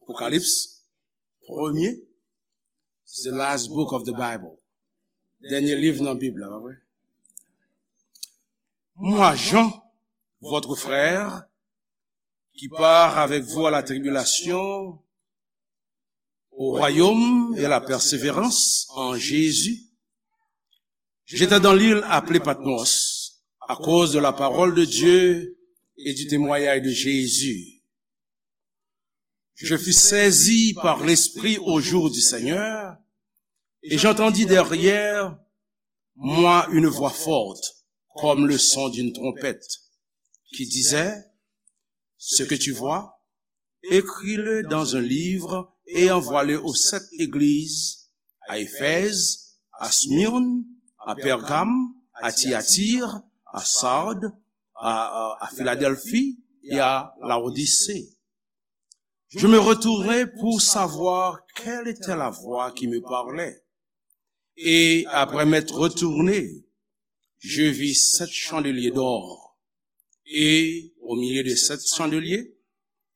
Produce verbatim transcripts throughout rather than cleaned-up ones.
Apokalips, premye, it's the last book of the Bible. Dènye liv nan Bib la, pa vre? Moi, Jean, votre frère, qui part avec vous à la tribulation, au royaume et à la persévérance en Jésus. J'étais dans l'île appelée Patmos à cause de la parole de Dieu et du témoignage de Jésus. Je fus saisi par l'Esprit au jour du Seigneur, et j'entendis derrière moi une voix forte, comme le son d'une trompette, qui disait, ce que tu vois, écris-le dans un livre et envoie-le aux sept églises, à Éphèse, à Smyrne, à Pergame, à Thyatire, à Sardes, à, à, à Philadelphie et à Laodicée. Je me retournai pour savoir quelle était la voix qui me parlait. Et après m'être retourné, je vis sept chandeliers d'or. Et au milieu de sept chandeliers,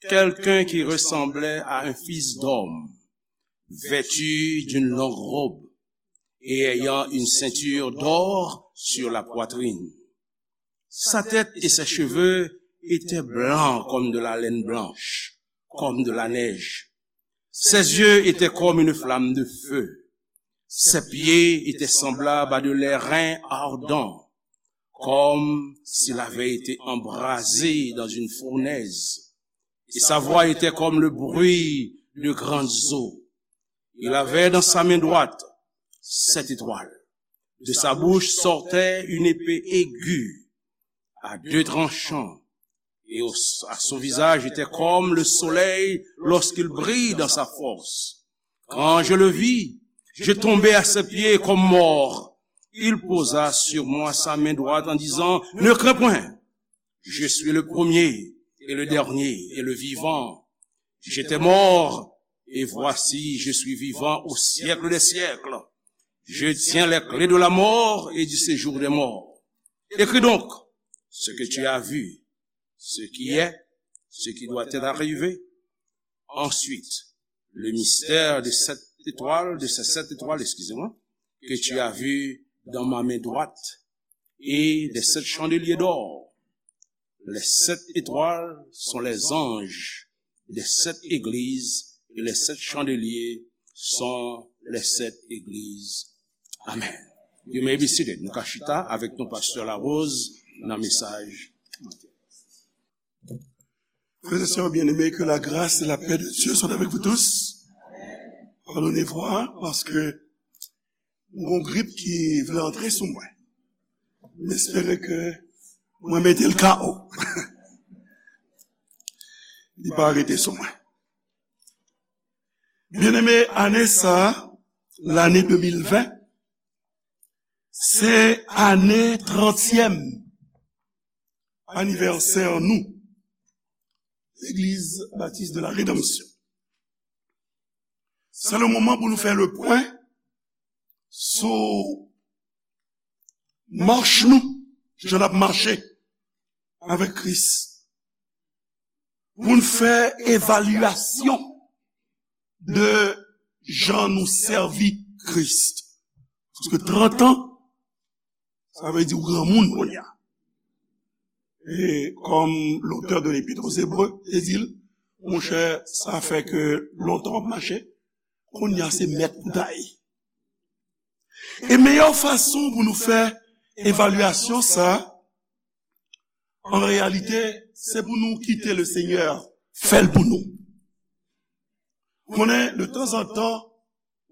quelqu'un qui ressemblait à un fils d'homme, vêtu d'une longue robe et ayant une ceinture d'or sur la poitrine. Sa tête et ses cheveux étaient blancs comme de la laine blanche, comme de la neige. Ses yeux étaient comme une flamme de feu. Ses pieds étaient semblables à de l'airain ardent, comme s'il avait été embrasé dans une fournaise. Et sa voix était comme le bruit de grandes eaux. Il avait dans sa main droite sept étoiles. De sa bouche sortait une épée aiguë, à deux tranchants, et au- à son visage était comme le soleil lorsqu'il brille dans sa force. Quand je le vis, je tombai à ses pieds comme mort. Il posa sur moi sa main droite en disant, ne crains point, je suis le premier et le dernier et le vivant. J'étais mort, et voici, je suis vivant au siècle des siècles. Je tiens les clés de la mort et du séjour des morts. Écris donc ce que tu as vu, ce qui est, ce qui doit être arrivé. Ensuite, le mystère de sept étoiles, de ces sept étoiles, excusez-moi, que tu as vu dans ma main droite et des sept chandeliers d'or. Les sept étoiles sont les anges des sept églises et les sept chandeliers sont les sept églises. Amen. You may be seated. Nou ka chita avèk nou, Pastè Larose, nan mesaj. Frères et sœurs bien-aimés, que la grâce et la paix de Dieu soient avec vous tous. Pardonnez-moi, paske m gon grip ki vle antre sou mwen. M espere ke mwen mete l K O. Li pa rete sou mwen. Byeneme, ane sa, lane de mil ven, se ane trantyèm anivèsè nou, Legliz Batis de la Redanmsyon. Se le moman pou nou fè le pwen sou mach nou, jan n ap mache avèk Kris. Pou n fè evalyasyon de jan nou sèvi Kris. Paske trant an, sa vle di w granmoun kounye a. E kòm l'auteur de l'Épître aux Hébreux te di l, monchè, sa fè ke lontan w ap mache, kounye a se mèt ou ta ye. E meyè fason pou nou fè evalyasyon sa, an reyalite, se pou nou kite le Senyè fè l pou nou. Konnen, de tanzantan,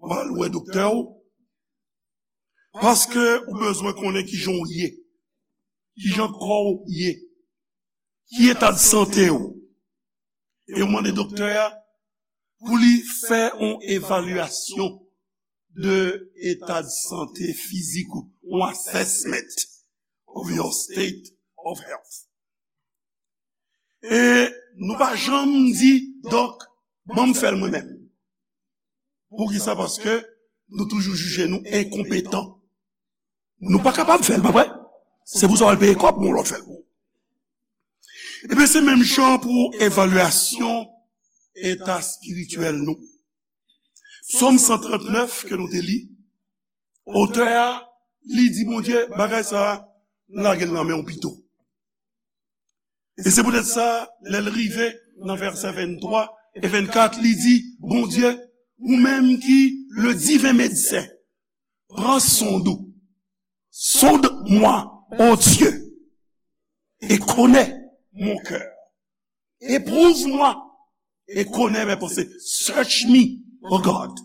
w al wè doktè w, paske ou bezwen konnen kijan w ye, kijan kò w ye, ki eta de sante w. E w mande doktè a pou li fè yon evalyasyon de eta de sante fizik ou, yon assessment of your state of health. E nou pa janm di, dòk, ban m fè l mwen menm. Poukisa? Paske nou toujou jije nou enkonpetan. Nou pa kapab fè l, pa vre? Se pou sa w al peye kòb pou yon lòt fè l pou ou. Ebyen, se menm jan pou evalyasyon eta espirityèl nou. Sòm san trannèf ke nou te li, otè a, li di Bondye, bagay sa a, m lage l nan men w pito. E se poutèt sa, lè l rive nan vèsè venntwa e vennkat, li di, Bondye, ou menm ki le divin médecin, pran sonde ou. Sonde-moi, ô Dieu, et connais mon cœur. Éprouve-moi et connais mes pensées. Search me, O God.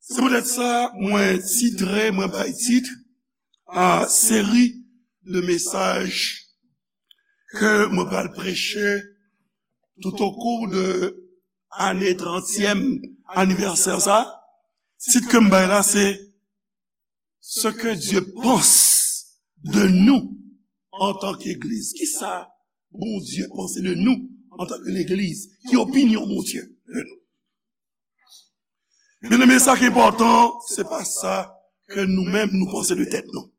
Se poutèt sa, mwen titre, mwen bay tit a seri de mesaj ke mwen pral preche tout o kou de ane trantyèm anivèsè sa. Tit ke m bay la, se Ce que Dieu pense de nous en tant qu'Église. Kisa Bondye panse de nou antanke legliz? Ki opinyon Bondye de nou? Byeneme, sa ki enpòtan, se pa sa ke nou menm nou panse de tèt nou.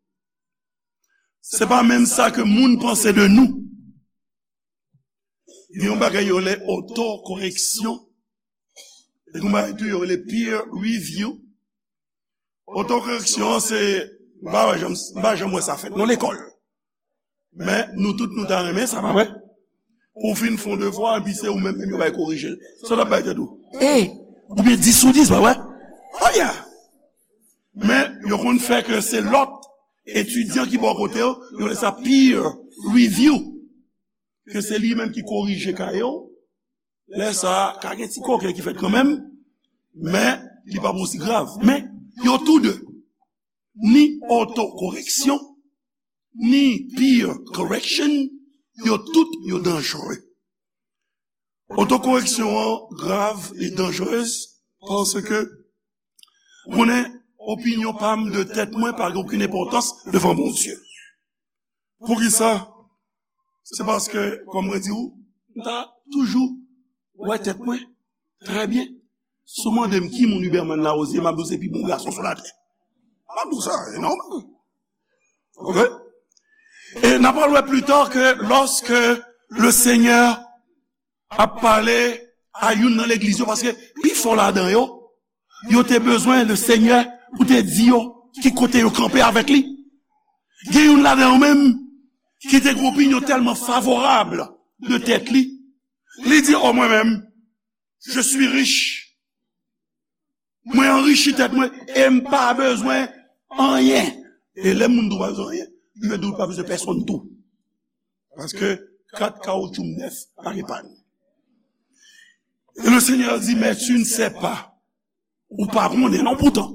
Se pa menm sa ke moun panse de nou. Gen yon bagay yo rele otokoreksyon. E gen yon bagay tou yo rele peer review. Otokoreksyon an se, m pa wè janm, m pa janm wè sa fèt nan lekòl. Men nou tout nou ta renmen sa, pa vre? Ou fin fè yon devwa, epi se ou menm, menm yo bay korije l. Sa w t ap bay tèt ou? E, oubyen dis sou dis, pa vre? Oh yeah! Men yo konn fè ke se lòt etidyan ki bò kote w, yo rele sa peer review. Ke se li menm ki korije kaye w. Lè sa a, ka gen ti koken ki fèt kanmenm, men li p ap osi grav. Men yo tou de, ni otokoreksyon, ni peer correction, yo tout yo danjere. Otokoreksyon an grav e danjerez paske, ou konnen, opinyon pa m de tèt mwen pa gen okenn enpòtans devan Bondye. Poukisa? Se paske, kòm mwen di w, m ta toujou wè tèt mwen trè byen. Si w mande m ki moun Huberman Larosière, m ap di w se pi bon gason sou latè. M ap di w sa, e nòmal. Oke? E n ap pral wè pli ta ke lòske le Senyè ap pale a youn nan legliz yo, paske pifò ladan yo, yo te bezwen le Senyè pou te di yo ki kote yo kanpe avèk li. Gen youn ladan yo menm ki te gen opinyon tèlman favorab de tèt li. Li di, o mwen menm, je suis riche. Mwen anrichi tèt mwen e m pa bezwen anyen. E lè moun di w pa bezwen anyen, li vle di w pa bezwen pèsonn tou. Paske kat kawotchou m nèf, pa gen pàn. E le Senyè di, mais tu ne sais pas. Ou pa konnen non poutan.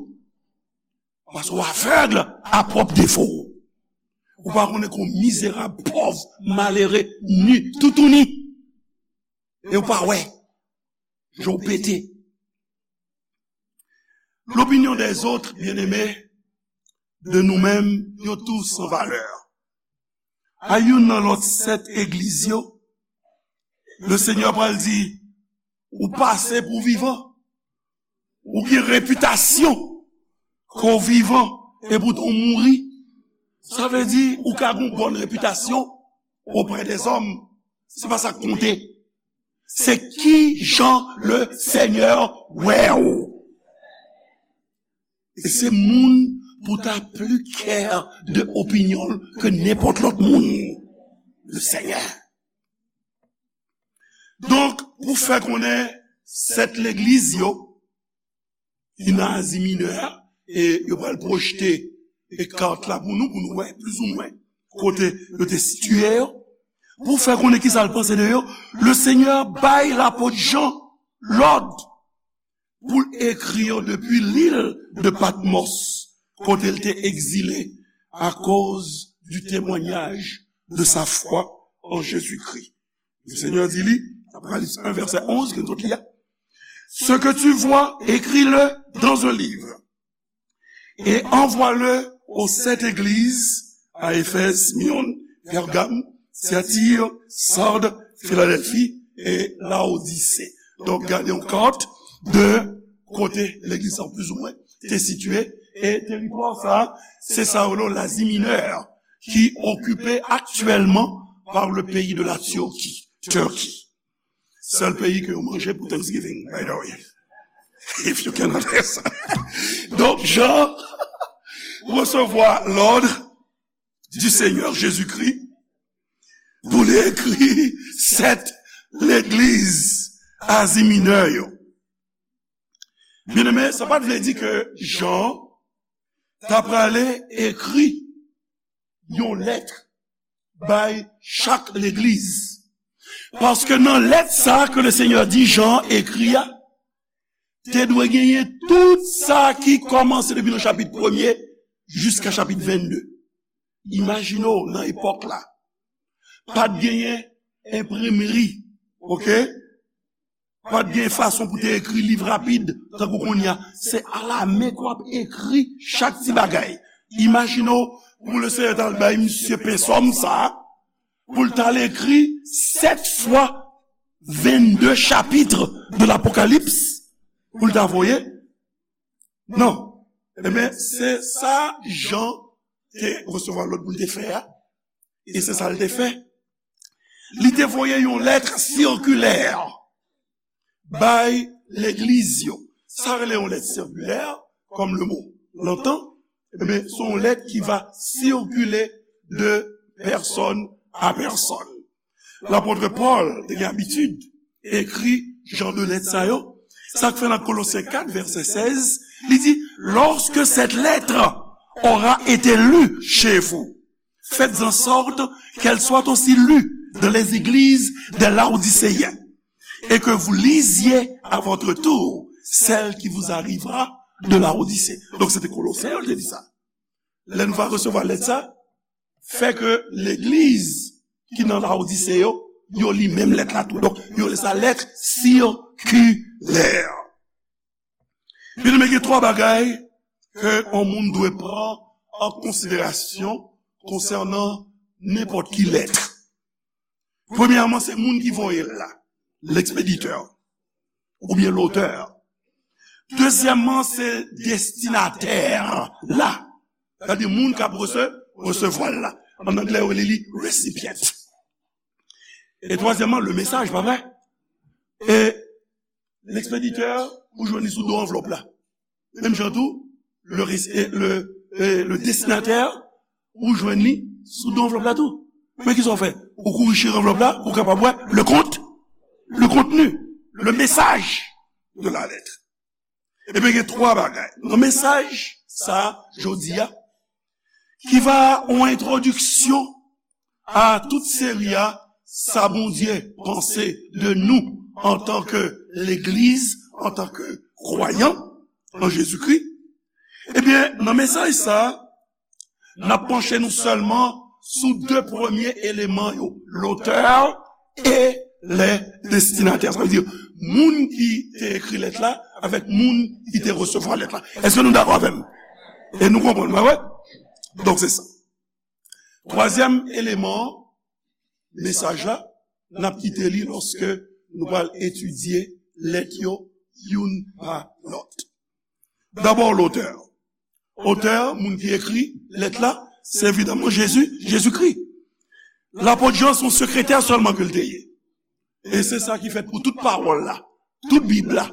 Paske w avèg a pwòp defo w. Ou pa konnen ke w mizerab, pòv, malere, ni, toutouni. E w pa wè. Je w pete. L'opinion des autres, bien-aimés, de nou menm, yo tou san valè. A youn nan lòt sèt egliz yo, le Senyè pral di, ou pase pou vivan. Ou gen repitasyon ke w vivan, epoutan w mouri. Sa vle di, ou ka gen yon bòn repitasyon oprè dèzòm. Se pa sa k konte. Se ki jan le Senyè wè w. E se moun pou ta pli kè de opinyon l ke nenpòt lòt moun. Le Senyè. Donk, pou fè konnen sèt legliz yo, ki nan Azi Minè a, e yo pral pwojte e kat la pou nou, pou nou wè plizoumwen kote yo te sitiye yo. Pou fè konnen kisa l panse de yo, le Senyè bay lapot Jan lòd pou l ekri yo depi lil de Patmòs, kote l te egzile akoz du témoignage de sa foi en Jésus-Christ. Le Senyè di li, Apokalips un, vèsè onz, ke nou sot li a, ce que tu vois, écris-le dans un livre et envoie-le aux sept églises, à Éphèse, Smyrne, Pergame, Thyatire, Sarde, Philadelphie et Laodicée. Donk, gade yon kat de kote legliz sa plizoumwen te sitiye, e teritwa sa, se sa yo rele Lazi Minè, ki okipe aktyèlman par le pays de la Turquie, Turquie. Sèl peyi ke yo manje pou Thanksgiving, by the way. If you can understand. Donk, Jan resevwa lòd du Seigneur Jésus-Christ pou li ekri sèt legliz Azi Minè yo. Byeneme, sa pa t vle di ke Jan ta prale ekri yon lèt bay chak legliz. Paske nan lèt sa ke le Senyè di Jan ekri a, te dwe genyen tout sa ki kòmanse depi nan chapit premye jiska chapit vennde. Imajine w nan epòk la. Pa t genyen enprimri, oke? Pa t gen fason pou te ekri liv rapid, tankou kounye a. Se alamen ke w ap ekri chak ti bagay. Imajine w, pou le Senyè t al bay misye pensòm sa, pou l t al ekri sèt fwa vennde chapitre de l'Apocalypse, pou l ta voye. Non. Ebyen, se sa Jan te resevwa lòd pou l te fè a. E se sa l te fè. Li te voye yon lèt sikilè bay legliz yo. Sa rele yon lèt sikilè, comme le mot l'entend, ebyen, se yon lèt ki va sikile de pèsòn a pèsòn. Lapot Pòl te gen abitid ekri jan de lèt sa yo. Sa k fè nan Kolosyen kat, vèsè sèz, li di, lorsque cette lettre aura été lue chez vous, faites en sorte qu'elle soit aussi lue dans les églises des Laodicéens, et que vous lisiez à votre tour celle qui vous arrivera de Laodicée. Donk, se te Kolosyen yo te di sa. Lè nou va resevwa lèt sa, fè ke legliz ki nan Laodise yo, yo li menm lèt la tou. Donk, yo rele sa lèt sikilè. Byeneme, gen twa bagay ke yon moun dwe pran an konsiderasyon konsènan nenpòt ki lèt. Premyèman, se moun ki voye l la, l'expéditeur, oubyen l'auteur. Dezyèmman, se destinatè la, sètadi moun k ap rese-, resevwa l la. An anglè, yo rele li recipient. E twazyèmman, le message, pa vre? E l'expéditeur, ou jwenn li sou do anvlòp la. Menm jan tou, le, res- e le, e le destinatè, ou jwenn li sou do anvlòp la tou. Men kisa w fè? Ou kouri chire anvlòp la, ou kapab wè le kont, le kontni, le message de la lettre. Ebyen, gen twa bagay nan mesaj sa a, jodi a, ki va yon entwodiksyon a tout seri a sa Bondye panse de nou antanke legliz, antanke kwayan an Jezikri. Ebyen, nan mesaj sa a, n ap panche nou sèlman sou de premye eleman yo, l'auteur et les destinataires. Sa vle di, moun ki te ekri lèt la avèk moun ki te resevwa lèt la. Èske nou dakò avè m? E nou konprann, pa vre? Donk, se sa. Twazyèm eleman mesaj la, n ap kite li lòske nou pral etidye lèt yo youn pa lòt. Dabò, l'auteur. Otè, moun ki ekri lèt la, se evidaman Jezi, Jezikri. Lapot Jan, se yon sekretè sèlman ke l te ye. E se sa ki fèt pou tout pawòl la, tout Bib la.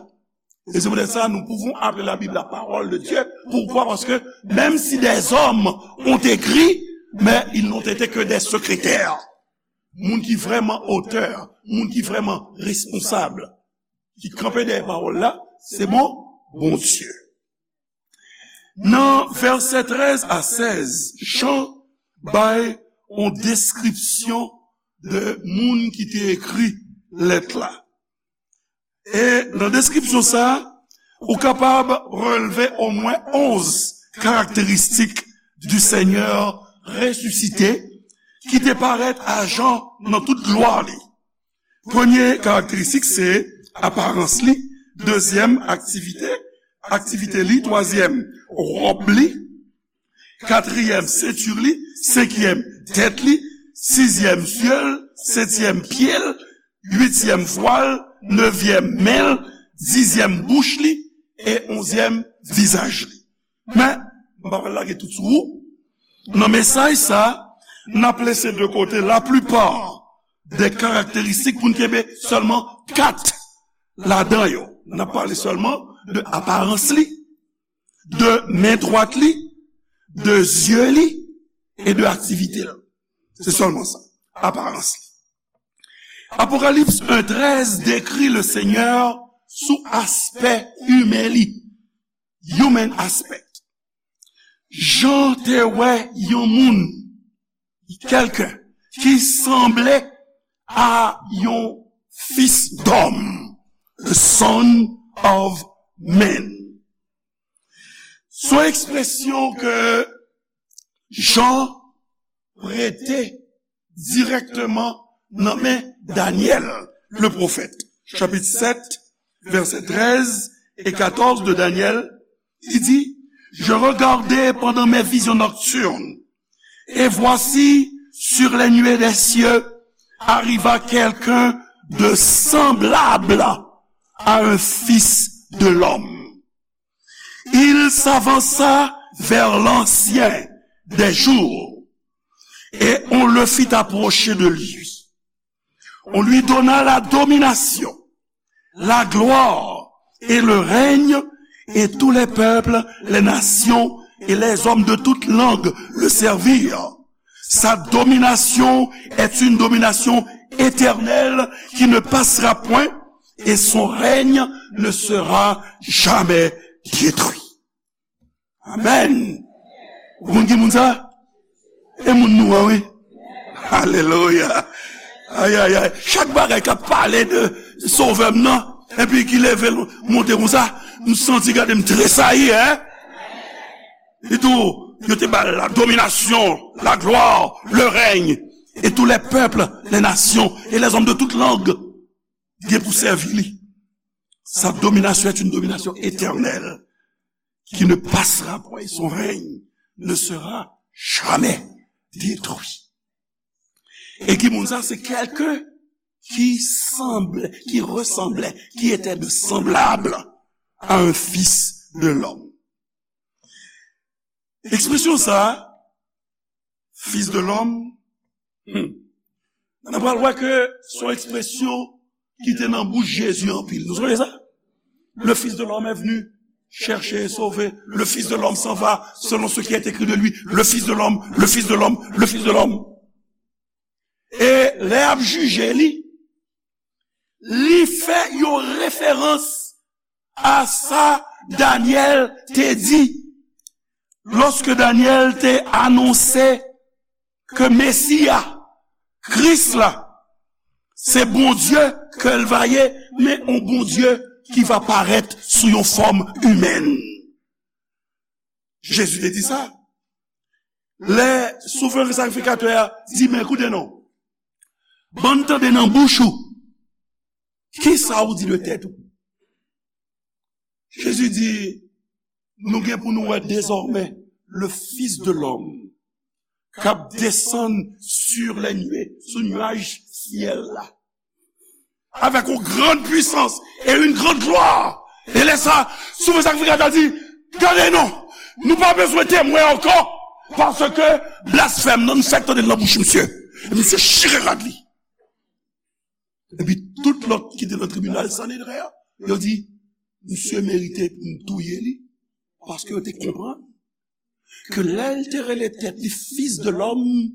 E se poutèt sa, nous pouvons appeler la Bible la parole de Dieu. Pourquoi? Parce que même si des hommes ont écrit, mais ils n'ont été que des secrétaires. Moun ki vrèman otè, moun ki vrèman responsab, ki kanpe dèyè pawòl la, se bon, Bondye. Nan vèsè trèz a sèz, Jan bay yon deskripsyon de moun ki te ekri lèt la. E nan deskripsyon sa a, ou kapab relve omwen onz karakteristik du Seigneur ressuscité ki te parèt a Jan nan tout glwa li. Premye karakteristik se aparans li, dezyèm aktivite, aktivite li, twazyèm wòb li, katriyèm senti li, senkyèm tèt li, sizyèm zye l, setyèm pye l, uityèm vwa l, nevyèm men l, dizyèm bouch li, e onzyèm vizaj li. Men, m pa pral lage tout sou ou. Nan mesaj sa, n ap lese de kote laplipa de karakteristik pou n kenbe sèlman kat ladan yo. N ap pale sèlman de aparans li, de men dwat li, de zye li e de aktivite l. Se sèlman sa, aparans li. Apokalips en trèz dekri le Senyè sou aspè imen li, human aspect. Jan te wè yon moun, quelqu'un, ki sanble a yon fis dòm, the son of man. Se yon ekspresyon ke Jan prete dirèkteman nan men Danyèl, le pwofèt. Chapit sèt, vèsè trèz e katòz de Danyèl, li di, Je regardai pendant mes visions nocturnes, et voici, sur les nuées des cieux, arriva quelqu'un de semblable à un fils de l'homme. Il s'avança vers l'ancien des jours, et on le fit approcher de lui. On lui donna la domination, la gloire et le règne, et tous les peuples, les nations et les hommes de toute langue le servirent. Sa domination est une domination éternelle qui ne passera point, et son règne ne sera jamais détruit. Amen. Ou konn ki moun sa? E moun nou an, wi. Alelouya. Ay, ay, ay. Chak bagay k ap pale de Sovè m nan, epi ki leve l monte konsa, m santi gade m tresayi, en. Li tou, yo te ba l la dominasyon, la glwa, le règne, et tous les peuples, les nations et les hommes de toute langue gen pou sèvi li. Sa domination est une domination éternelle qui ne passera point, et son règne ne sera jamais détruit. E ki moun sa? Se quelqu'un qui semble, qui ressemblait, qui était de semblable à un fils de l'homme. Ekspresyon sa, fils de l'homme, hmm, nou pral wè ke se yon ekspresyon ki te nan bouch Jezi anpil. Nou sonje sa? Le Fils de l'homme est venu chercher et sauver. Le Fils de l'homme s'en va selon ce qui est écrit de lui. Le Fils de l'homme, le Fils de l'homme, le Fils de l'homme. E lè y ap jije li, li fè yon referans a sa Danyèl te di lòske Danyèl te anonse ke Mesi a, Kris la, se Bondye ke l va ye, men yon Bondye ki va parèt sou yon fòm imèn. Jezi te di sa. Lè souvren sakrifikatè a di, men koute non, ban n tande nan bouch ou, kisa ou di de tèt ou? Jezi di, nou gen pou nou wè dezòmè le Fils de l'homme k ap desann sur les nuées, sou nuaj syèl la, avec une grande puissance et une grande gloire. E lè sa, souvren sakrifikatè a di, gade non, nou pa bezwen temwen ankò, paske blasfèm nan, nou fèk tande l nan bouch misye. E misye chire rad li. Epi tout lòt ki te nan tribinal Sanedren an, yo di, misye merite pou n touye li, paske yo te konprann ke lè l te rele tèt li Fils de l'homme,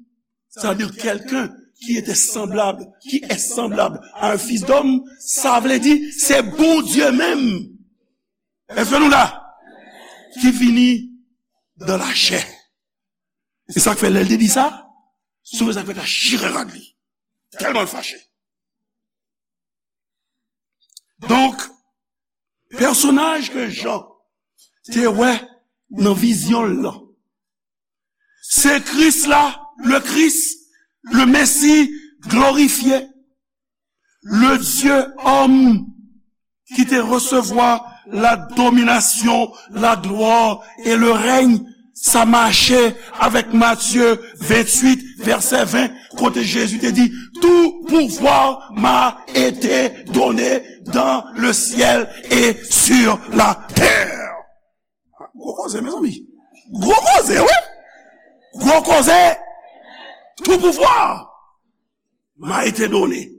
c'est-à-dire quelqu'un qui était semblable, qui est semblable à un fils d'homme, sa vle di se Bondye menm. Èske nou la? Ki vini dans la chair. E sa k fè lè l te di sa, souvren sakrifikatè a chire rad li. Tèlman l fache. Donk, pèsonaj ke Jan te wè nan vizyon l lan, se Kris la, le Christ, le Messie glorifié, le Dieu homme ki te resevwa la domination, la gloire et le règne. Sa mache avèk Matye venntuit, vèsè ven, kote Jezi te di, tout pouvoir m'a été donné dans le ciel et sur la terre. Gwo koze, mezanmi. Gwo koze, wi. Gwo koze. Tout pouvoir. m'a été donné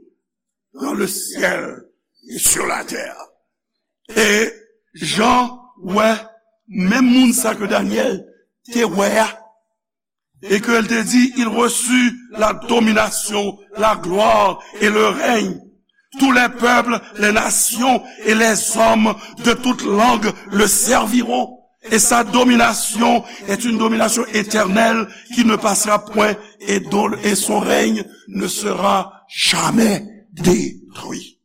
dans le ciel et sur la terre. E Jan wè menm moun sa ke Danyèl te wè a, et que elle te dit, il reçut la domination, la gloire et le règne. Tous les peuples, les nations et les hommes de toute langue le serviront. Et sa domination est une domination éternelle qui ne passera point et dont, et son règne ne sera jamais détruit.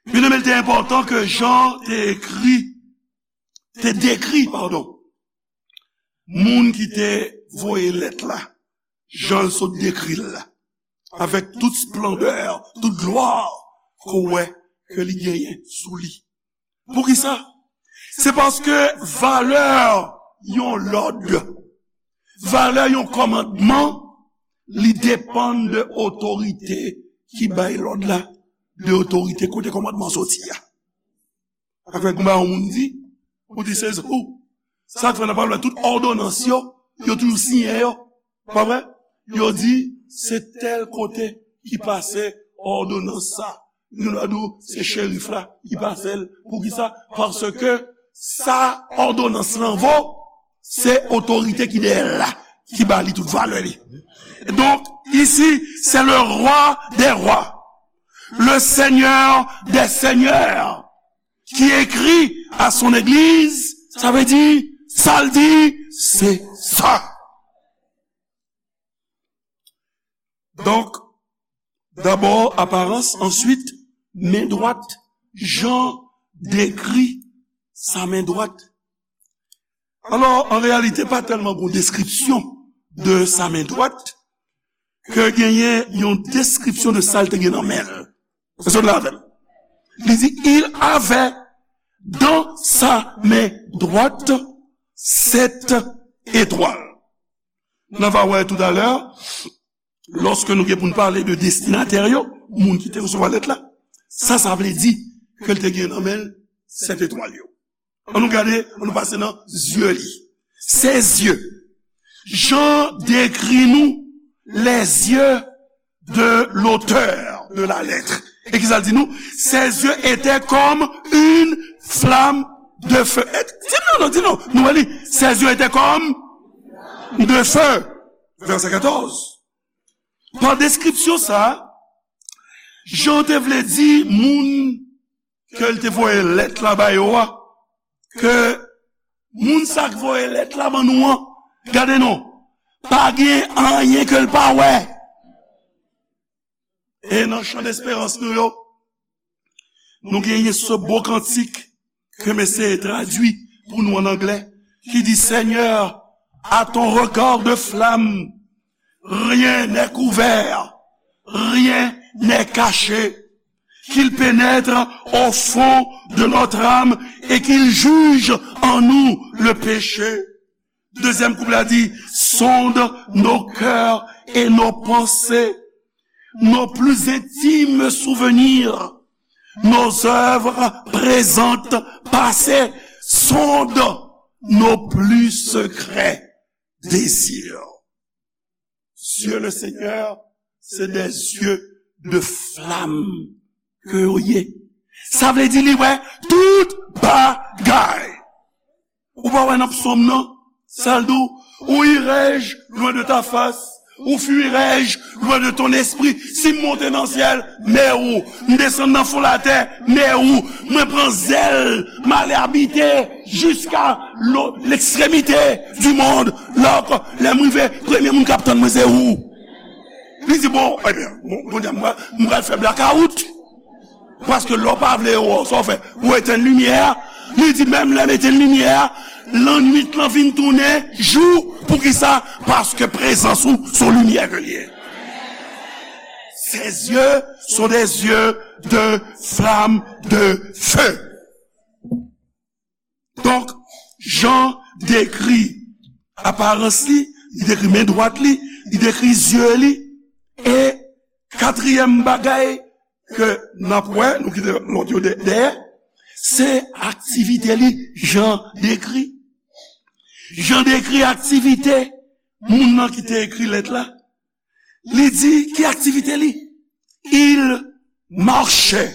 Byeneme, li te enpòtan ke Jan te ekri, te dekri, padon, moun ki te voye lèt la, jan l sot dekri l la, avèk tout splandè, tout glwa ke w wè ke li genyen sou li. Poukisa? Se paske valè yon lòd, valè yon kòmandman, li depann de otorite ki bay lòd la, de otorite kote kòmandman soti a. Sa fè konba yon moun di, ou di se ou. Sa k fè nan pawòl la, tout òdonans yo, yo toujou siyen yo. Pa vre? Yo di, se tèl kote ki pase òdonans sa. Nou va di w, se cherif la ki pase l. Poukisa? Paske sa òdonans lan vo, se otorite ki dèyè l la, ki ba li tout valè li. Donc, ici, c'est le roi des rois, le seigneur des seigneurs, qui écrit à son église, sa vle di, sa l di, se sa. Donk, dabò, aparans, answit, men dwat, Jan dekri sa men dwat. Alò, an reyalite, pa tèlman gon deskripsyon de sa men dwat, ke genyen yon deskripsyon de sa l te gen nan men l. Èske w la avè m? Li di, il avait dans sa main droite sept étoiles. Nou va wè toutalè, lòske nou gen pou n pale de destinatè yo, moun ki te resevwa lèt la, sa, sa vle di ke l te gen nan men l sèt etwal yo. Ann nou gade, ann nou pase nan zye li. Ses yeux. Jan dekri nou les yeux de l'auteur de la lettre. E kisa l di nou? Ses yeux étaient comme une flamme de feu. E, di nou non, di nou. Nou wè li. Ses yeux étaient comme de feu. Vèsè katòz. Pa deskripsyon sa, Jan te vle di moun ke l te voye lèt la ba yo a, ke moun sa k voye lèt la ban nou an, gade non, pa gen anyen ke l pa wè. E nan chan desperans nou yo, nou genyen se bo kantik ke m eseye tradui pou nou an anglè, ki di, Seigneur, à ton regard de flamme, rien n'est couvert, rien n'est caché, qu'il pénètre au fond de notre âme et qu'il juge en nous le péché. Dezyèm kouplet la di, sonde nos cœurs et nos pensées, nos plus intimes souvenirs, nos œuvres présentes, passées, sonde nos plus secrets désirs. Yeux le Seigneur, c'est des yeux de flamme ke yo ye. Sa vle di li wè tout bagay. Ou pa wè nan psòm nan, sa l di w, ou irai-je loin de ta face, ou fuirai-je loin de ton esprit. Si m monte nan syèl, men ou. M desann nan fon latè, men ou. Mwen pran zèl, m ale abite jiska lo-, l'extrémité du monde. Lòk, lè m rive, premye moun k ap tann mwen se ou. Li di, bon, ebyen, bon, kounye a m pral, m pral fè blakawout. Paske lè w pa vle yo wè w, sa w fè? Ou etenn limyè a. Li di, menm lè m etenn limyè a, lannwit lan vin tounen jou. Poukisa? Paske prezans ou se yon limyè ke l ye. Ses yeux sont des yeux de flamme de feu. Donk, Jan dekri aparans li, li dekri men dwat li, li dekri zye li, e katriyèm bagay ke n ap wè, nou kite lòt yo dè-, dèyè, se aktivite li, Jan dekri. Jan dekri aktivite moun nan ki te ekri lèt la. Li di, ki aktivite li? Il marchait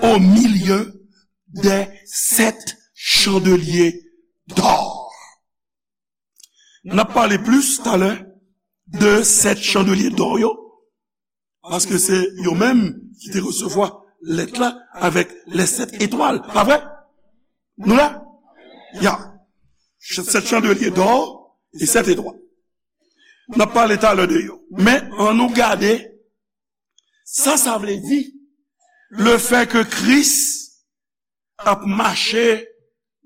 au milieu des sept chandeliers d'or. N ap pale plis talè de sèt chandelye dò yo, paske se yo menm ki te resevwa lèt la avèk les sept étoiles. Pa vre? Nou la? Ya. Sèt chandelye dò e sèt etwal. N ap pale talè de yo. Men, ann nou gade sa sa vle di, le fait que Kris ap mache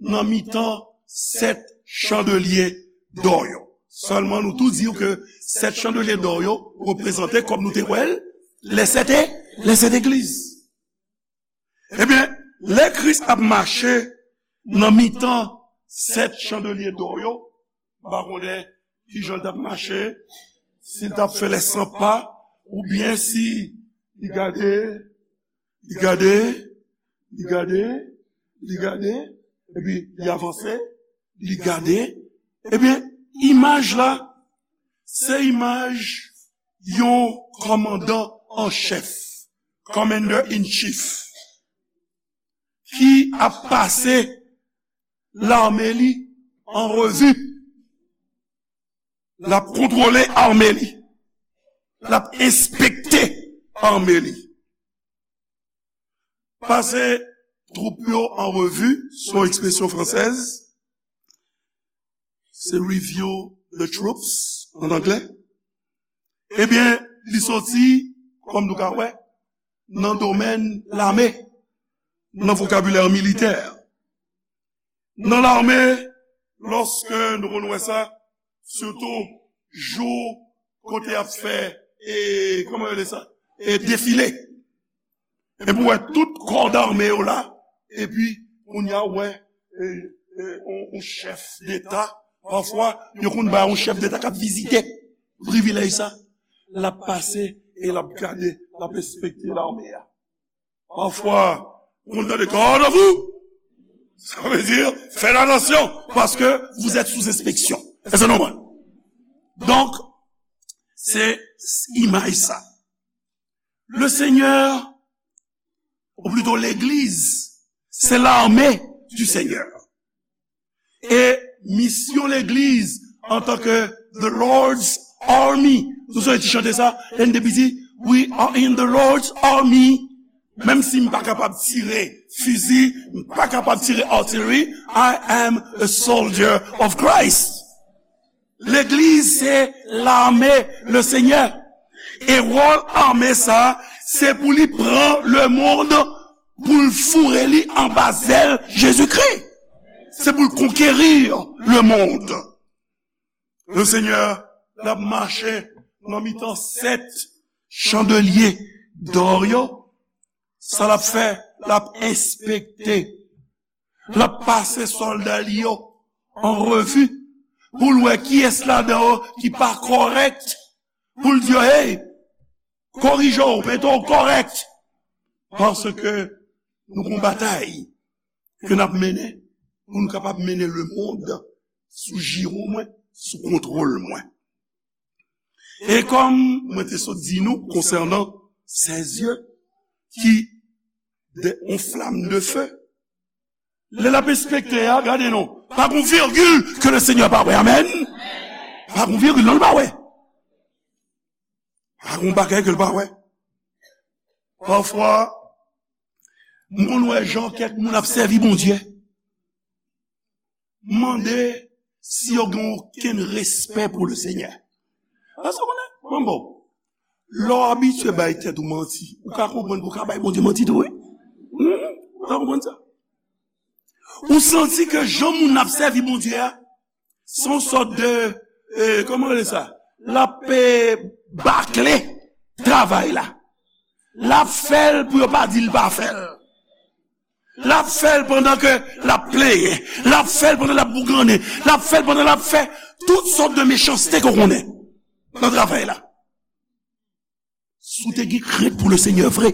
nan mitan sèt chandelye dò yo. Sèlman nou tou di w ke sèt chandelye dò yo reprezante, kòm nou te wè l, les sept, les sept églises. Ebyen, lè Kris ap mache nan mitan sèt chandelye dò yo, m pa konnen kijan l t ap mache, si l t ap fè les cent pas, oubyen si li gade, li gade, li gade, li gade, epi li avanse, li gade. Ebyen, imaj la, se imaj yon kòmandan an chèf, commander in chief, ki ap pase lame li an revi. L ap kontwole ame li. L ap enspekte ame li. Pase twoup yo an revi, se yon ekspresyon fransèz. Se review the troops an anglè. Ebyen, li soti, kòm nou ka wè, nan domèn lame, nan vokabilè militè. Nan lame, lòske nou konn wè sa, sitou jou kote y ap fè, e, kòman yo rele sa? E defile. Epi w wè tout kò dame yo la, epi kounye a w wè, e, e, yon, yon chèf deta. Pafwa, yo konn bay yon chèf deta k ap vizite. Privilèj sa, l ap pase e l ap gade, l ap enspekte lame a. Pafwa, ou konn tande, "Garde à vous!" Sa vle di, "Faites attention, parce que vous êtes sous inspection." Èske nou konprann? Donk, se imaj sa. Le Seigneur, ou plito legliz, se lame du Seigneur. E misyon legliz antanke the Lord's army. Nou sonje ti chante sa, lè n te piti, "We are in the Lord's army." Menm si m pa kapab tire fizi, m pa kapab tire artillery, I am a soldier of Christ. Legliz se lame le Senyè. E wòl ame sa, se pou li pran lemonn, pou l foure li anba zèl Jezikri. Se pou l konkeri lemonn. Le Senyè, l ap mache nan mitan sèt chandelye dò yo. Sa l ap fè, l ap enspekte. L ap pase sòlda li yo an revi pou l wè kiyès ladan yo ki pa kòrèk, pou l di yo, "Hey, korije w, mete w kòrèk." Paske nou gon batay ke n ap mennen pou nou kapab mennen lemonn sou jiwo mwen, sou kontwòl mwen. E kòm mwen te sot di nou konsènan sèz zye ki de yon flam de fe, lè l ap enspekte a, gade non, pa gon virgil ke le Senyè pa wè. Amèn. Pa gon virgil non, l pa wè. Pa gon bagay ke l pa wè. Pafwa, m konn wè jan kèk moun ap sèvi Bondye. Mande si yo gen okenn respè pou le Senyè. Paske w konnen, mwen bon, lè w abitye bay tèt ou manti, ou ka konprann ke w ka bay Bondye manti tou, wi. Hmm, ou ka konprann sa. Ou santi ke jan moun ap sèvi Bondye a, se yon sòt de, eh, kòman rele sa? L ap, eh, bakle travay la. L ap fè l pou yo pa di l pa fè l. L ap fè l pandan ke l ap plenyen. L ap fè l pandan l ap bougannen. L ap fè l pandan l ap fè tout sòt de mechanste ke w konnen nan travay la. Si w te gen krent pou le Senyè vre,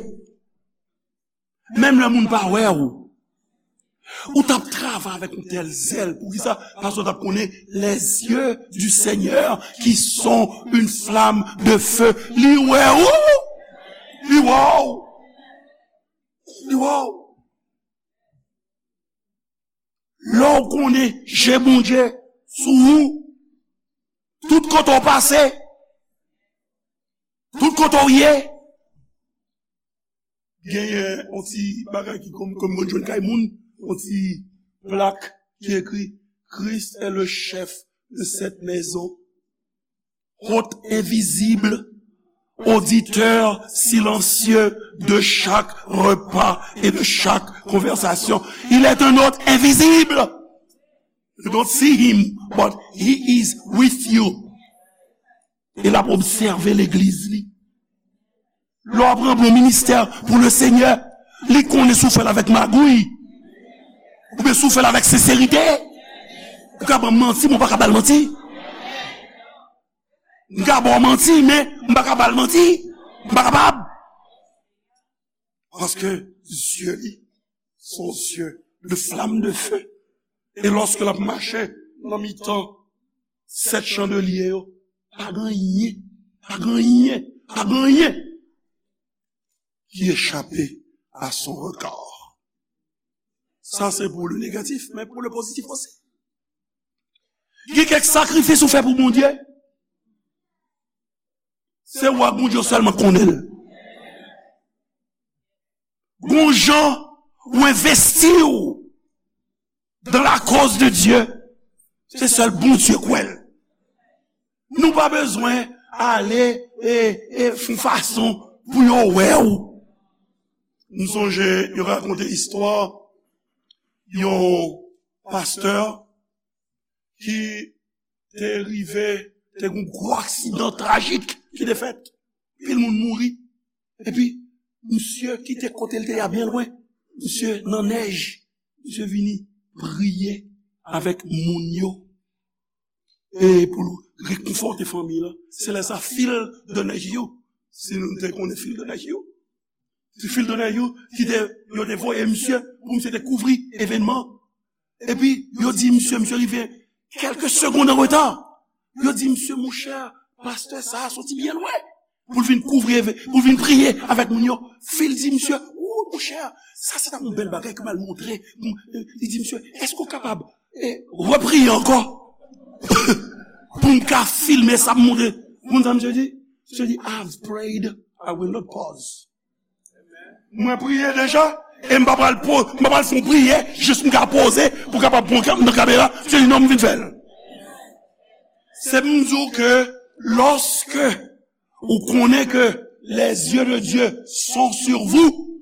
menm lè moun pa wè w, Ou t ap travay avèk yon tèl zèl. Poukisa? Paske w t ap konnen les yeux du Seigneur qui sont une flamme de feu. Li wè ou. Li wè ou. Li wè ou. Lè w konnen je Bondye sou ou, tout kote w pase, tout kote w ye, genyen yon ti bagay ki kòm, kòm mwen jwenn kay moun, yon ti plak ki ekri: Christ est le chef de cette maison. Hôte invisible, auditeur silencieux de chaque repas et de chaque conversation. Il est un hôte invisible. You don't see him, but he is with you. E l ap obsève legliz li. Lè w ap ranpli yon ministè pou le Senyè, li konnen si w fè l avèk magouy, oubyen si w fè l avèk senserite. Ou ka ban m manti, men w pa ka ba l manti. M ka ba w manti, men m pa ka ba l manti. M pa kapab. Paske zye li se yon zye de flamme de feu. E lòske l ap mache nan mitan sèt chandelye yo, pa gen anyen, pa gen anyen, pa gen anyen ki echape à son regard. Sa se pou le negatif, men pou le pozitif osi. Gen kèk sakrifis ou fè pou Bondye. Se ou ak Bondye sèlman konnen l. Gon jan ou envesti w dans la cause de Dieu, se sèl Bondye k wè l. Nou pa bezwen ale e, e fè yon fason pou yo wè w. M sonje yo rakonte istwa yon pastè ki te rive, te gen yon gwo aksidan trajik ki te fèt. Pil moun mouri. Epi, misye kite kote l te ye a byen lwen. Misye nan nèj. Misye vini priye avèk moun yo. E pou l rekonfòte fanmi l. Se lè sa fil de nèj yo. Si nou te konnen fil de nèj yo. Se fil de nèj yo ki te, yo te voye misye pou misye te kouvri evènman. Epi, yo di misye, misye rive kèlke segonn an reta. Yo di misye, monchè, pastè sa a soti byen lwen pou l vin kouvri, pou l vin priye avèk moun yo. Fil di misye, ou, monchè, sa se ta yon bèl bagay ke m al montre. Li di misye, èske w kapab, e, repriye ankò pou m ka filme sa m montre? Ou konn sa misye di? Misye di, I've prayed, I will not pause. Mwen priye deja, e m pa pral po, m pa pral fè yon priyè, jis m ka poze pou kapab pran nan kamera. Misye di, non, m vin fè l. Se pou m di w ke lòske ou konnen ke les yeux de Dieu sont sur vous,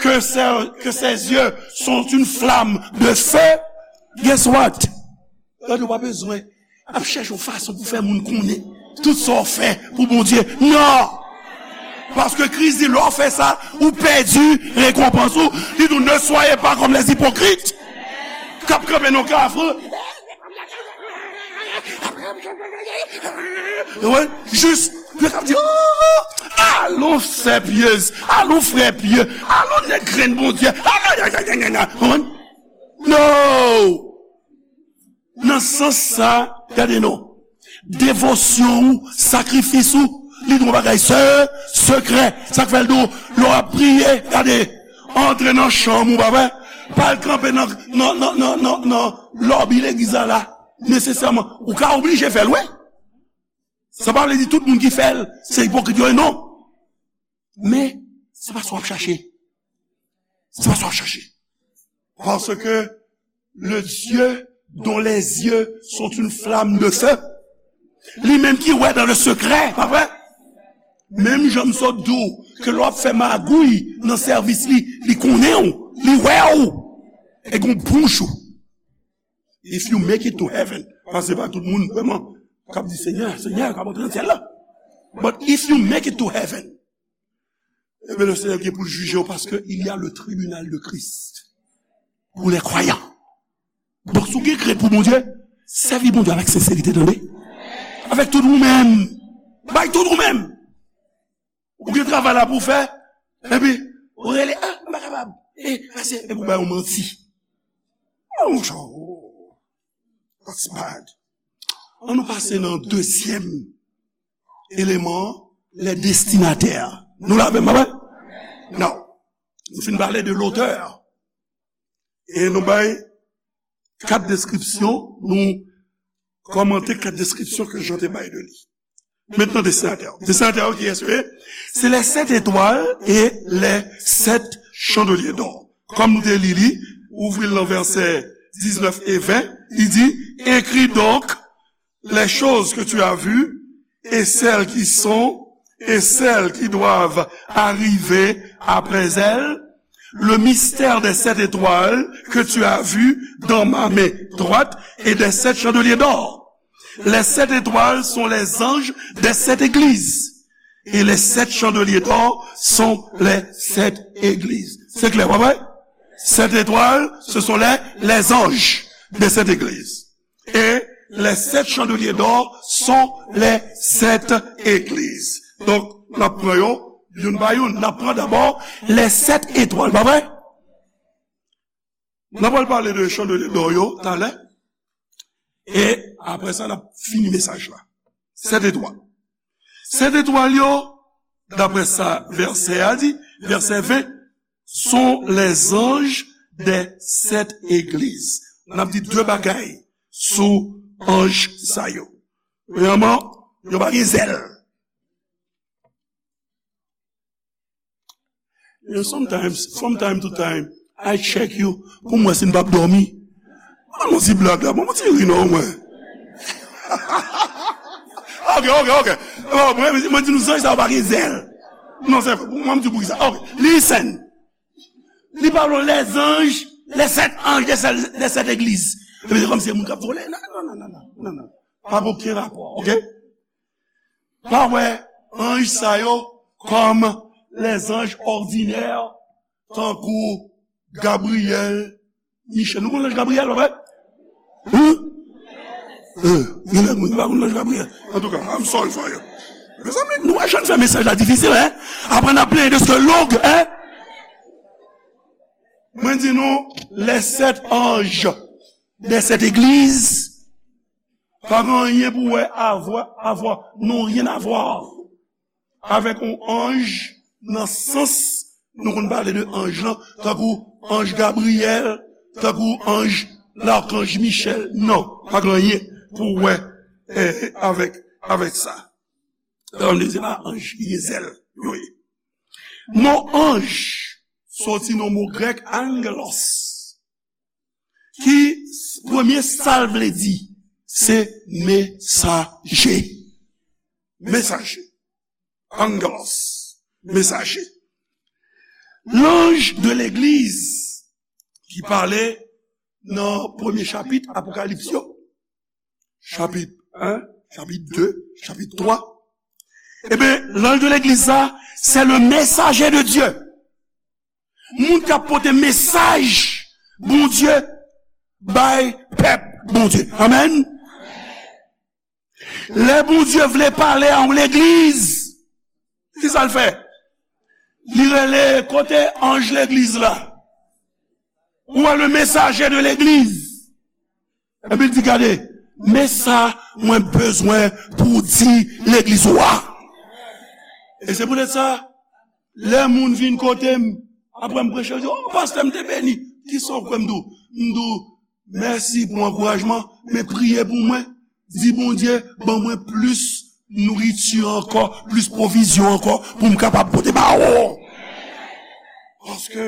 que ses, que ses yeux sont une flamme de feu, guess what? Gade, ou pa bezwen ap chèche yon fason pou fè moun konnen tout sa w fè pou Bondye. Non! Paske Kris di, lè w fè sa, ou pèdi rekonpans ou. Li di, ne soyez pas comme les hypocrites, k ap kanpe nan kafou. Ou konprann? Jis, yo k ap di, oh, alon sè pyez, alon frè pye, alon nèg grenn Bondye. Ou konprann? Non! Nan sans sa, gade non. Devosyon ou, sakrifis ou, li gon bagay se, sekrè. Sa k fè l di w, lè w ap priye, gade, antre nan chanm ou, pa vre? Pa al kanpe nan, nan, nan, nan, nan, nan lòbi legliz la, la. Nesesèman, ou ka oblije fè l, wi. Sa pa vle di tout moun ki fè l, se ipokrit yo ye, non. Men, se pa sa w ap chache. Se pa sa w ap chache. Parce que le Dieu dont les yeux sont une flamme de feu, li menm ki wè dans le secret, pa vre? Menm jan m sot di w ke lè w ap fè magouy nan sèvis li, li konnen w, li wè w. E gon bouch ou. If you make it to heaven, paske se pa tout moun vrèman k ap di, Senyè, Senyè, k ap antre nan syèl la. But if you make it to heaven, eh bien, le Seigneur gen pou l jije w, paske il y a le tribunal de Christ pour les croyants. Donk, si w gen krent pou Bondye, sèvi Bondye avèk senserite, tande. Avèk tout ou menm. Bay tout ou menm. Ou gen travay la pou w fè, epi ou rele, ah, m pa kapab. E, pase, epi ou bay yon manti. Oh, that's bad. Ann nou pase nan dezyèm eleman, les destinataires. Nou la avè m, pa vre? Non. Nou fin pale de l'auteur. E nou bay kat deskripsyon, nou kòmante kat deskripsyon ke Jan te bay de li. Maintenant, destinataire. Destinataire, qui est-ce? C'est les sept étoiles et les sept chandeliers d'or. Kòm nou te li li, ouvri l nan vèsè diznèf e ven, li di, écris donc les choses que tu as vues et celles qui sont et celles qui doivent arriver après elles, le mystère des sept étoiles que tu as vues dans ma main droite et des sept chandeliers d'or. Les sept étoiles sont les anges des sept églises. Et les sept chandeliers d'or sont les sept églises. Se klè, pa vre? Sept étoiles, ce sont les, les anges des sept églises. Et les sept chandeliers d'or sont les sept églises. Donk, n ap pran yo youn pa youn. N ap pran dabò les sept étoiles, pa vre? N ap pral pale de chandelier d'or yo talè. E apre sa, n ap fini mesaj la. Sèt etwal. Sèt etwal yo, daprè sa vèsè a di, vèsè ven, sont les anges des sept églises. N ap di de bagay sou anj sa yo. Premyèman, yo pa gen zèl. You know, sometimes, from time to time, I check you pou m wè si n p ap dòmi. Ban m yon ti blag la, ban m yon ti ri non mwen. Ok, ok, ok. Oh, mwen, mwen di nou zanj sa yo pa gen zèl. Non, se vre, mwen m di pou ki sa. Ok, listen. Li pale de les anges, les sept anges des sept, des sept églises. Epi se kòmsi se moun k ap vole. Non, non, non, non, non, non, non. Pa gen okenn rapò, ok? Pa wè anj sa yo kòm les anges ordinaires, tankou Gabriyèl, Michèl. Nou konn lanj Gabriyèl, pa vre? Hein? Eh, gen lè moun pa konn lanj Gabriyèl. Antouka, I'm sorry for you. Mezanmi, nou wè jan n fè mesaj la difisil, hein? Apre n ap plenyen de se ke long, hein? Mwen di nou, les sept anges des sept églises, pa gen anyen pou wè avwa, avwa, n'ont rien à voir avèk yon anj nan sans nou konn pale de anj lan, tankou anj Gabriyèl, tankou anj, lakanj Michèl. Non, pa gen anyen pou wè, eh, avèk, avèk sa. Sa vle di se pa anj ki gen zèl yo ye. Mo anj soti nan mo grèk angelos, ki premye sa l vle di, se mesaje. Mesaje. Angelos. Mesaje. L'ange de l'église ki pale nan premye chapit Apokalips yo, chapit en, chapit de, chapit twa. Ebyen, l'ange de l'église sa, c'est le messager de Dieu. Moun k ap pote mesaj Bondye bay pèp Bondye. Amèn. Lè Bondye vle pale a yon legliz, ki sa l fè? Li rele kote anj legliz la. Ou wè le messager de l'église. Epi l di, gade, men sa mwen bezwen pou w di legliz ou a. E se poutèt sa, lè moun vin kote m, apre m preche, yo di, oh, pastè, m te beni. Kisa w kwè m di w? M di w, mèsi pou ankourajman, men priye pou mwen. Di Bondye, ban mwen plis nouriti ankò, plis pwovizyon ankò, pou m kapab pote ba ou. Paske,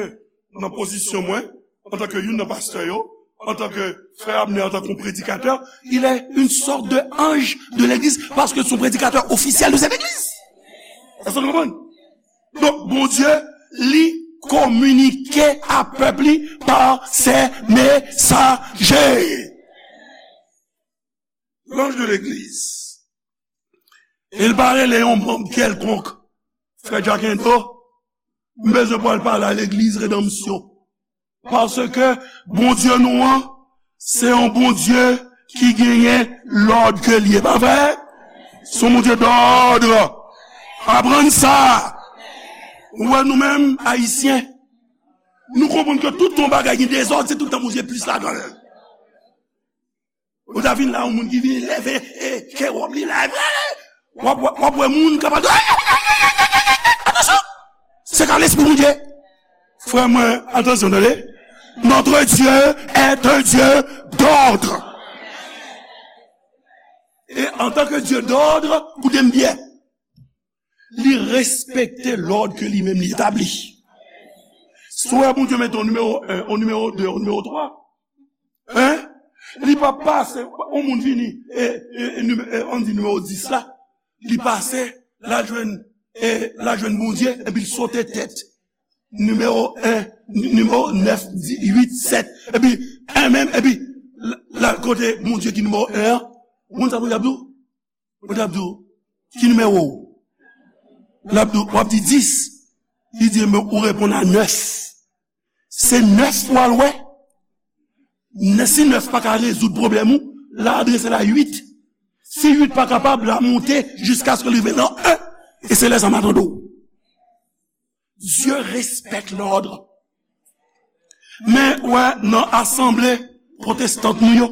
nan pozisyon mwen, antanke youn nan pastè yo, antanke frè Abner, antanke yon predikatè, il est une sorte de ange de l'église, paske se yon predikatè ofisyèl de cette église. Èske nou konprann? Donk, Bondye, li kominike a pèp li pa se mesaje. L'ange de l'église. E l pa rele yon manm kèlkonk. Frè Jackendo, m bezwen pou al pale a legliz Redanmsyon. Paske Bondye nou an, se yon Bondye ki genyen lòd ke l ye. Pa vre? Se yon Bondye dòd. Aprann sa. Ou wè nou menm, Ayisyen, nou konprann ke tout yon bagay gen dezòd, se tout tan Bondye plis ladan l. Ou ta vin la, yon moun ki vin leve, e, kè wòb li la, w ap, w ap, w ap wè moun kapab, atansyon! Se ka lespri Bondye. Frè mwen, atansyon, tande. Notre Dieu est un Dieu d'ordre. E antanke Dye dòd, koute m byen, li respekte lòd ke li menm li etabli. Si w wè Bondye mete yon nimewo en, yon nimewo de, yon nimewo twa, en, li pa pase, yon moun vini, e, e, e, nime-, e, ann di nimewo dis la, li pase, l al jwenn, e, l al jwenn Bondye, epi l sote tèt nimewo en, ni-, nimewo nèf, di-, uit, sèt, epi en menm, epi l, l al kote Bondye ki nimewo en an. Ou konn sa Bondye ap di w? Bondye ap di w, ki nimewo w? L ap di w, w ap di dis. Li di, men ou reponn a nèf. Se nèf w al wè. Nè-, si nèf pa ka rezoud pwoblèm ou, l a adrese l a uit. Si uit pa kapab, l a monte jiskaske l rive nan en. E se lè sa m a tande w. Dieu respecte l'ordre. Men, wè, nan asanble pwotestant nou yo,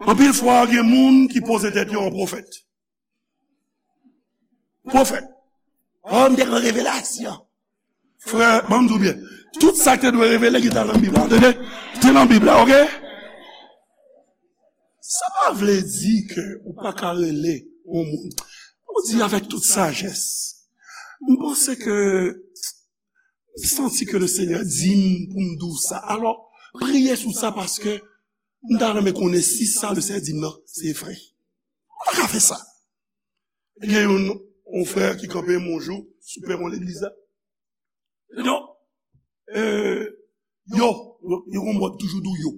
anpil fwa, gen moun ki poze tèt yo an pwofèt. Pwofèt. Oh, m te gen revelasyon. Frè, ban m di w byen. Tout sa ki te dwe revele, ki te nan Bib la, tande? Te nan Bib la, oke? Sa pa vle di ke ou pa ka rele yon moun. Ou di avèk tout sajès. M panse ke m santi ke le Senyè di m pou m di w sa. Alò, priye sou sa paske m ta renmen konnen si sa le Senyè di m nan, se vre. Ou pa ka fè sa. Gen yon, yon frè ki kanpe yon jou sou pèwon legliz la. Donk, euh, yo, yo, yo gon mòd toujou di w yo.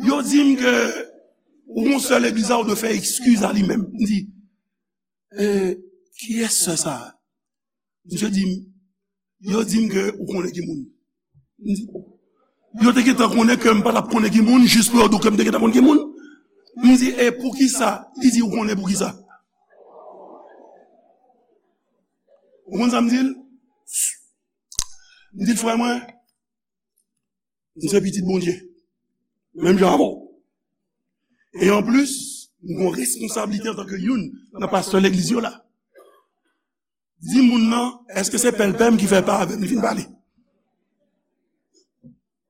Yo di m ke ou gon sè legliz la, ou dwe fè eskiz a li menm. M di, euh, kiyès sè sa a? Misye di m, yo di m ke ou konnen ki moun. M di, yo te gentan konnen ke m pa t ap konnen ki moun, jis pou yo di w ke m te gentan konn ki moun. M di, e poukisa? Li di, ou konnen poukisa? Ou konn sa m di l? M di l, frè mwen, m se pitit Bondye. Menm jan avè w. E anplis, m gon responsablite antanke youn nan pastè legliz yo la. Di moun nan, èske se pèlpè m ki fè pa avè m li fin pale?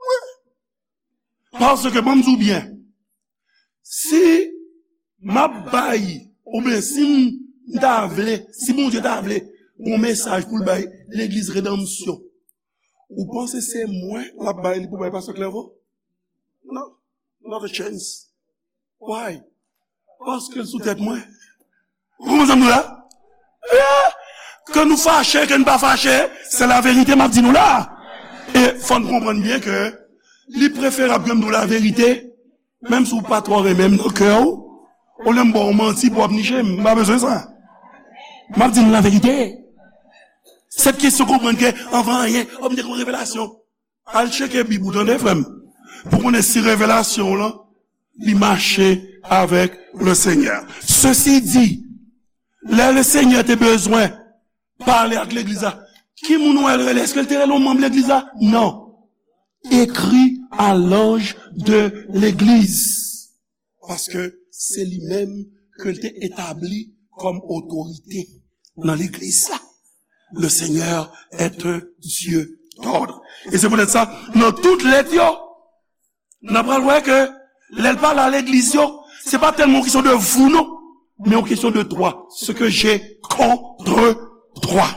Wi. Paske, ban m di w byen, si m ap bay, oubyen si m ta vle, si Bondye ta vle yon mesaj pou l bay legliz redanmsyon, ou panse se mwen l ap bay li pou bay pastè Clerveau? Non, not a chance. Why? Paske l sou tèt mwen. Ou konprann sa m di w la? Eh, ke nou fache, ke nou pa fache, se laverite m ap di nou la. E fò n konprann byen ke li preferab ke m di w laverite, menm si w pa twò renmen m nan kè w, olye m ba w manti pou w ap niche m, m pa bezwen sa. M ap di nou laverite. Sèt kesyon konprann ke anvan anyen, o, m te gen yon revelasyon. Al tcheke Bib ou, tande, frè m, pou konnen si revelasyon w lan, li mache avèk le Senyè. Sesi di, lè le Senyè te bezwen pale ak legliz la, ki moun ou wè l rele? Èske l te rele yon manm legliz la? Non. Écris à l'ange de l'église. Paske se li menm ke l te etabli kòm otorite nan legliz la. Le Seigneur est un Dieu d'ordre. E se poutèt sa, nan tout lèt yo, n a pral wè ke lè l pale a legliz yo, se pa tèlman yon kesyon de vous, non, men yon kesyon de toi. Ce que j'ai contre toi.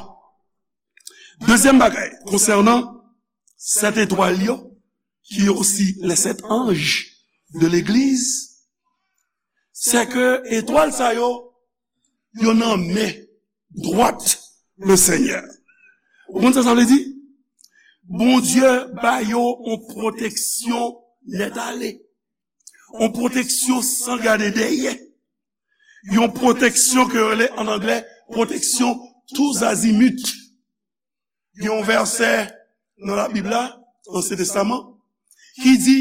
Dezyèm bagay, konsènan sèt etwal yo, ki osi les sept anges de l'église, se ke etwal sa yo, yo nan men dwat le Senyè. Ou konn sa sa vle di? Bondye ba yo yon pwoteksyon nèt ale. Yon pwoteksyon san gade dèyè. Yon pwoteksyon ke yo rele an anglè pwoteksyon tous azimuts. Gen yon vèsè nan Labib la, Ansyen Testaman, ki di,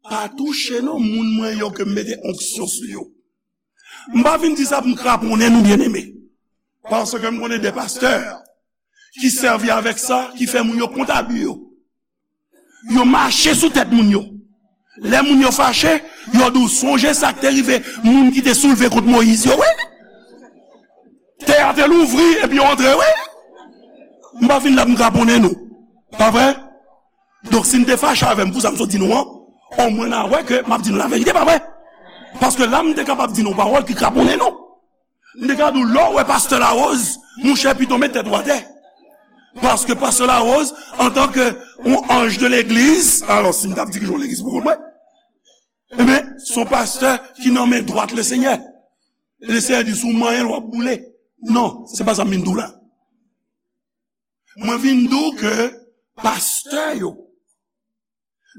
pa touche non moun mwen yo ke m mete onksyon sou yo. M pa vin di sa pou m kraponnen nou, byeneme. Paske m konnen de pastè ki sèvi avèk sa, ki fè moun yo kont abi yo. Yo mache sou tèt moun yo. Lè moun yo fache, yo di w sonje sa k te rive moun ki te soulve kont Moyiz yo, wi. Tè a te louvri, epi yo antre, wi. M pa vin la pou m kraponnen nou. Pa vre? Donk, si n te fache avè m pou sa m sot di nou an, omwen n a wè ke m ap di nou laverite, pa vre? Paske la, m te kapab di nou yon pawòl ki kraponnen nou. M te ka di w, lè w wè pastè Larose, monchè, pito met tèt ou atè. Paske pastè Larose, antanke yon anj de legliz, alò, si m t ap dirije yon legliz pou kont mwen, ebyen, se yon pastè ki nan men dwat Lesenyè. Lesenyè di, si w manyen l, w ap boule. Non, se pa sa m vin di w la. Mwen vin di w ke pastè yo,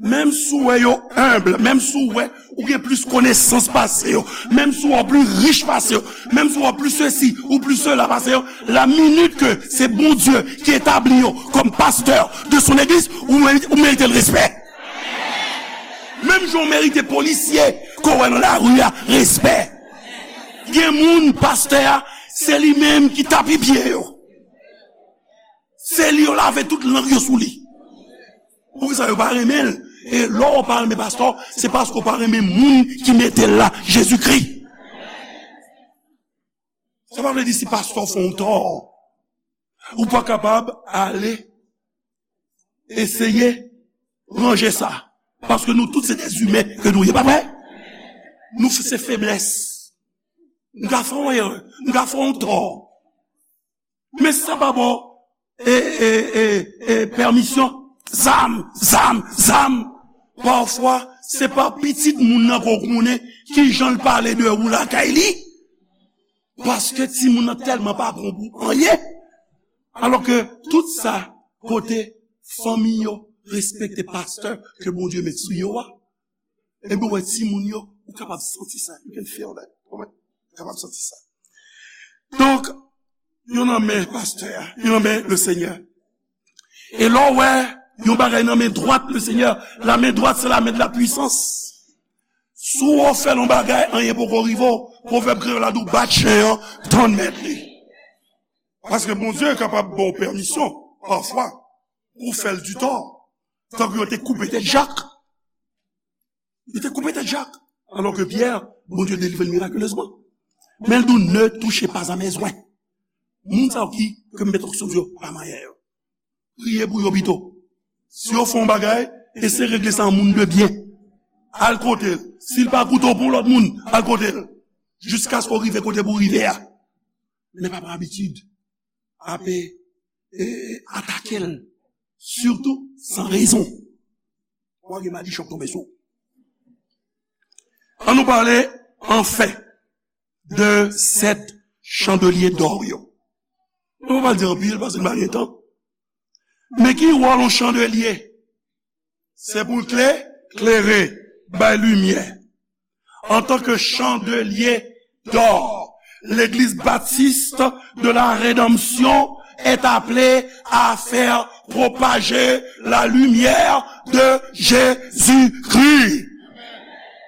menm si w wè yo enb, menm si w wè ou gen plis konesans pase yo, menm si w wè w pli rich pase yo, menm si w wè w pli sesi ou pli sela pase yo, la minit ke se Bondye ki etabli yo kòm pastè de son église, ou merite, ou merite l respè. Menm jan w merite polisye ke w wè nan lari a respè. Gen moun, pastè a, se li menm ki tapi pye yo. Se li yo lave tout lang yo sou li. Poukisa yo pa renmen l? E lè w pa renmen pastè w, se paske w pa renmen moun ki mete l la, Jezikri. Sa pa vle di si pastè w fè w tò, ou pa kapab ale eseye ranje sa. Paske nou tout se dèzimen ke nou ye, pa vre? Nou se feblès. Nou ka fè yon erè, nou ka fè yon tò. Men sa pa bon e, e, e, e, pèmisyon. Zam, zam, zam. Pafwa, se pa pitit moun nan ke w konnen kijan l pale de ou lakay li. Paske timoun nan tèlman pa bon pou anyen. Alò ke tout sa kote fanmi yo respekte pastè ke Bondye met sou yo a, ebyen, w wè timoun yo, ou kapab santi sa. You can feel that. Ou kapab santi sa. Donk, yo nan men pastè a, yo nan men le Senyè. E lè w wè yon bagay nan men dwat le Senyè, la men dwat se la men de la pwisans. Si w fè yon bagay, anyen poko rive w, pwovèb kreyòl la di w bat chen an, tann mèt li. Paske Bondye kapab ba w pèmisyon, pafwa, pou w fè l di tò. Tankou yo te koupe tèt Jak. Yo te koupe tèt Jak. Alò ke Pyè, Bondye delivre l mirakilezman. Men l di w, ne touchez pas à mes oints. Moun sa yo ki, ke m met onksyon sou yo, pa manyen yo. Priye pou yo pito. Si yo fè yon bagay, eseye regle sa an moun de byen. Al kote l. Si l pa koute w pou yon lòt moun, al kote l. Jiskaske w rive kote pou w rive a. Men pa pran abitid. Ape, e, e, atake l. Sitou san rezon. W a gen madichon k tonbe sou w. Ann nou pale, anfen, de sèt chandelye dò yo. Nou pa pral di anpil, paske n pa gen tan. Men ki wòl yon chandelye? Se pou l klè, klere, bay limyè. En tant que chandelier d'or, l'Église baptiste de la rédemption est appelée à faire propager la lumière de Jésus-Christ.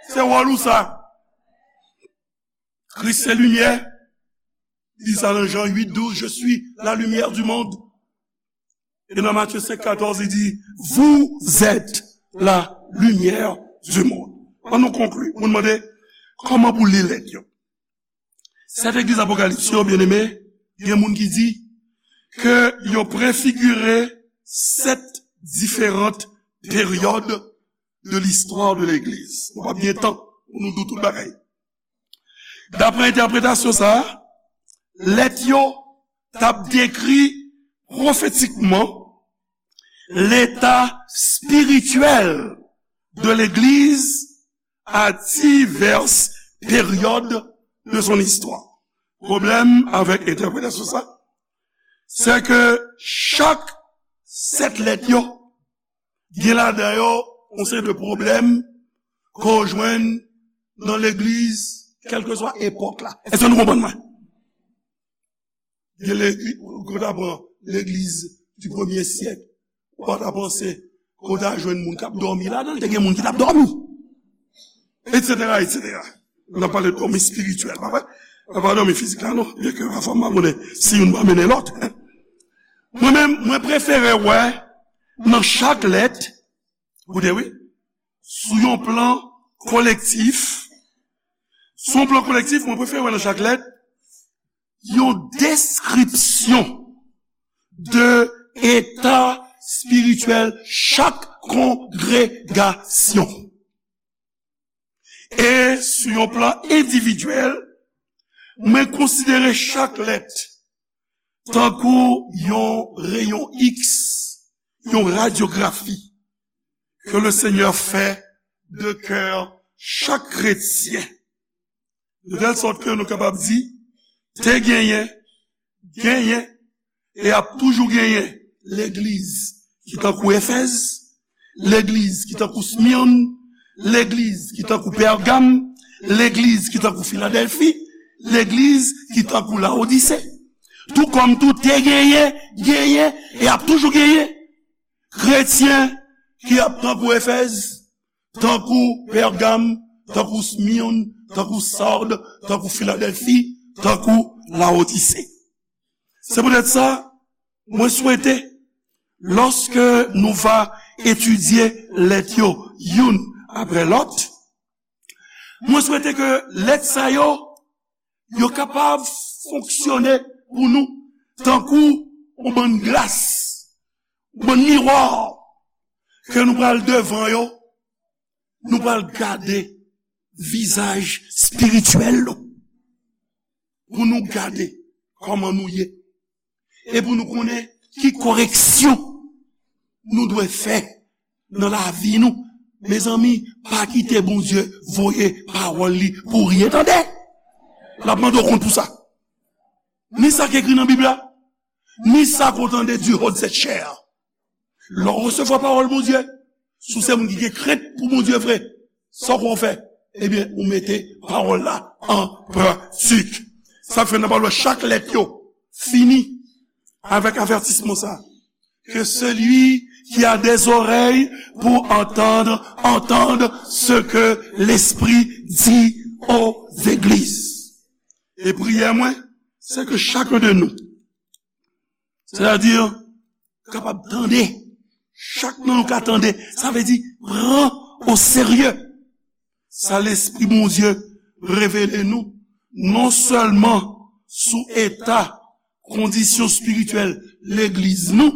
Se wòl ou sa. Kris se limyè. Li di sa nan Jan uit douz, je suis la lumière du monde. E nan Matye senk katòz, li di, vous êtes la lumière du monde. Ann nou konkli. Moun mande, kòman pou li lèt yo? Sèt legliz Apokalips yo, byeneme, gen moun ki di ke yo prefigire sèt diferan peryòd de listwa de legliz. Nou p ap gen tan pou nou di w tout bagay. Daprè entèpretasyon sa a, lèt yo t ap dekri pwofetikman leta espirityèl de legliz à diverses périodes de son histoire. Pwoblèm avèk entèpretasyon sa, se ke chak sèt lèt yo gen ladan yo yon seri de pwoblèm ke w jwenn nan legliz, kèlkeswa epòk la. Èske nou konprann mwen? Gen legliz, ou ta pran legliz di premye syèk, ou pa ta panse ke w ta jwenn moun k ap dòmi ladan l, te gen moun ki t ap dòmi. Etsetera, etsetera. N ap pale de dòmi espirityèl, pa vre? N pa dòmi fizik la, non. Byenke pafwa m pa konnen si youn pa mennen lòt. Mwen menm, mwen prefere wè nan chak lèt, koute wi, sou yon plan kolektif, sou yon plan kolektif, mwen prefere wè nan chak lèt, yon deskripsyon de eta espirityèl chak kongregasyon. E sou yon plan endividyèl, mwen konsidere chak lèt tankou yon reyon X, yon radyografi ke le Senyè fè de kè chak kretyen. De tèl sòt ke nou kapab di, te genyen, genyen, e ap toujou genyen legliz ki tankou Efèz, legliz ki tankou Smyòn, legliz ki tankou Pègam, legliz ki tankou Filadèlfi, legliz ki tankou Lawodise. Tou kòm tou te genyen, genyen, e ap toujou genyen kretyen ki ap tankou Efèz, tankou Pègam, tankou Smyòn, tankou Sard, tankou Filadèlfi, tankou Lawodise. Se poutèt sa, mwen swete, lòske nou va etidye lèt yo youn apre lòt, mwen swete ke lèt sa yo, yo kapab fonksyone pou nou tankou yon bann glas, yon bann miwa ke nou pral devan yo, nou pral gade vizaj espirityèl nou. Pou nou gade kòman nou ye. E pou nou konnen ki koreksyon nou dwe fè nan lavi nou. Mezanmi, pa kite Bondye voye pawòl li pou ryen, tande. L ap mande w kont pou sa. Ni sa k ekri nan Bib la, ni sa k w tande du haut de cette chair. Lè w resevwa pawòl Bondye, si w se moun ki gen krent pou Bondye vre, sa w fè? Ebyen, ou mete pawòl la an pratik. Sa fè n ap wè chak lèt yo fini avèk avètisman sa. Que celui qui a des oreilles pour entendre, entende ce que l'Esprit dit aux églises. E priyè mwen, se ke chak de nou, sètadi, kapab tande, chak nan nou ka tande, sa vle di pran o serye sa Lespri Bondye revele nou, non sèlman sou eta, kondisyon espirityèl legliz nou,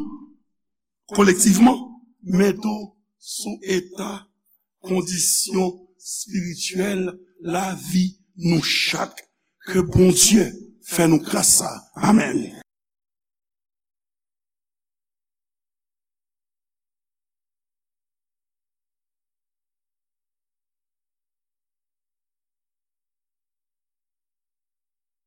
kolektivman, men tou sou eta, kondisyon espirityèl lavi nou chak. Ke Bondye fè nou gras sa. Amèn.